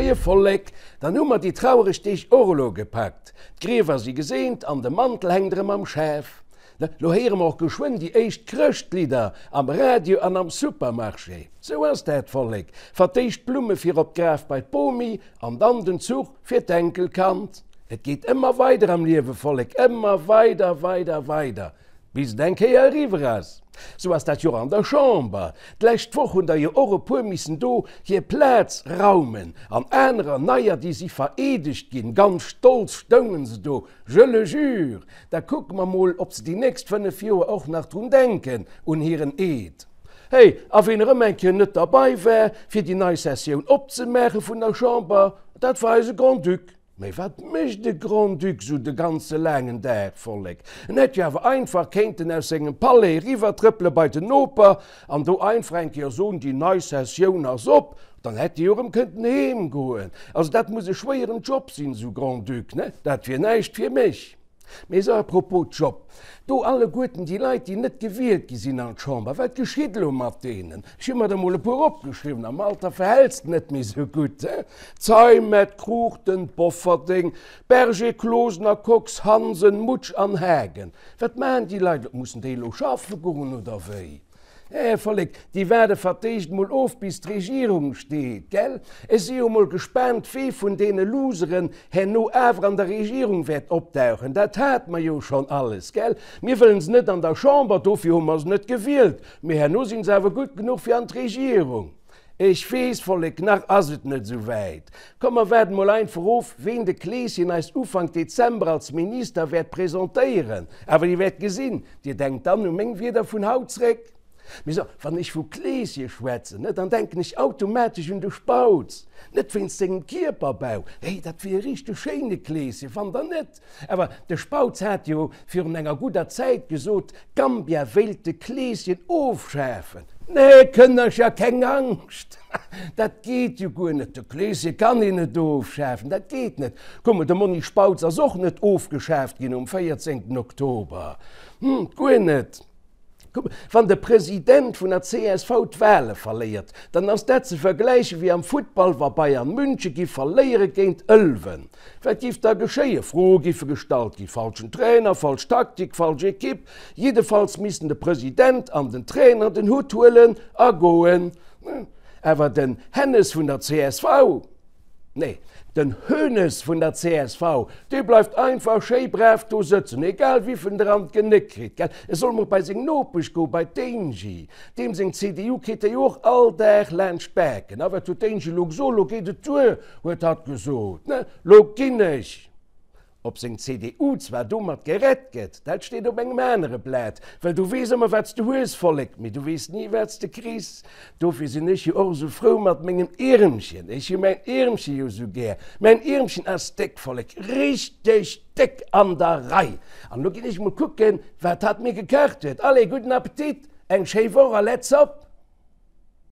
Moie Vollek, dann hu mer déi trauereg Deeg och elo gepackt. D'Griewer si geseent an de Mantel hänkt erëm am Schaf. Lo héiere mer och geschwënn déi éischt Chrëschtlidder am Radio an am Supermarché. Sou ass dat, Vollek, Fir d'éischt d'Blumme fir op d'Graf bei d'Bomi an dann den Zuch fir d'Enkelkand. Et geet ëmmer weider am Liewe, Vollek, ëmmer weider, weider, weider, bis et eng Kéier eriwwer ass. Sou ass dat jo och an der Chamber. D'lescht Woch hunn der jo och e puer missen do hir Plaz raumen an anerer neier, déi si vereedegt ginn. Ganz stolz stoungen se do, je le jure. Da kucke mer mol, ob se déi nächst 5 Joer och nach drun denken, un hiren Eed. Hey, a ween erëm eng Kéier net derbei war, fir déi nei Sessioun opzemaache vun der Chamber, dat war eise Grand-Duc. Mee wat mécht e Grand-Duc sou de ganze laangen Dag, Vollek? En hätt jo awer einfach kéinten aus sengem Palais eriwwertrëppele bei den Noper an do einfach eng Kéier soen, déi nei Sessioun ass op, dann hätt e jo erëm kënnten heem goen. Also dat muss e schwéieren Job sinn, sou Grand-Duc, ne? Dat wier näischt fir mech. Mee sou à propos Job, do alleguerten déi Leit, déi net gewielt gi sinn an d'Chamber, wat geschitt elo mat deenen? Ech hu mer der mol e puer opgeschriwwen, am Alter verhäls de net méi sou gutt, he? Zeimet, Cruchten, Bofferding, Berger, Closener, Kox, Hansen, Mutsch an Haagen. Wat maachen déi Leit elo? Mussen déi elo schaffe goen oder wéi? Här Vollek, déi waarde fer d'éischt mol of bis d'Regierung steet, gell? Ech si jo mol gespaant wee vun deene Loseren herno awer an der Regierung wäert opdauchen. Dat hate mer jo schonn alles, gell? Mir wëllen se net an der Chamber, dofir hu mer se net gewielt, mee herno sinn se awer gutt genuch fir an d'Regierung. Ech weess, Vollek, nach ass et net esou wäit. Komm mer waarden mol einfach of, ween de Kleeschen eis Ufank Dezember als Minister wäert presentéieren. Awer Dir wäert gesinn, Dir denkt dann u meng Wierder vun haut zréck. Mee so, wann ech vu Kleeschen schwätzen, ne, dann denken ech automatesch un de Spautz. Net wéinst sengem Kierperbau, hey, dat wier e richteg schéine Kleeschen, fannt Der net? Awer de Spautz hat jo virun enger gudder Zäit gesot, Gambia wéilt de Kleeschen ofschafen. Nee, Kënnercher, keng Angscht, dat geet jo guer net, de Kleeschen kann een net ofschafen, dat geet net. Kuck mol, de Monni Spautz ass och net ofgeschaaft ginn um 14 Oktober, hm, guer net. Wann de President vun der csv d'Wale verléiert, dann ass dat ze vergläiche wéi am Futtball, wa Bayern München giff verléiere géint Ëlwen. Wat giff da geschéien? Froe giffe gestallt ginn, falschen Trainer, falsch Taktik, falsch Ekipp. Jiddefalls missten de President an den Trainer den Hutt huelen a goen. Awer den Hennes vun der csv? Nee, den Hoeneß vun der csv, dee bleift einfach schéi brav do sëtzen, egal wivill en der an d'Genéck kritt, gell? E soll mol bei seng Nopesch goen, bei d'Angie. Deem seng CDU kritt e jo och all Dag laanscht d'Baken. A wat huet d'Angie lo gesot? Lo geet et duer, huet hatt gesot, ne? Lo ginn ech! Ob seng CDU zwar domat gerett gëtt, dat steet op engem anere Blat, well du weess ëmmer wat s de hues, Vollek, mee du weess ni wat s de kriss. Dofir sinn ech jo och esou frou mat mengem Iermchen. Ech hu mäin Iermche jo esou gär. Mäin Iermchen ass déck, Vollek, richteg déck an der Rei. An elo ginn ech mol kucken, wat hatt mir gekacht huet. Allez, gudden Appetit, eng schéi Woch a let's op!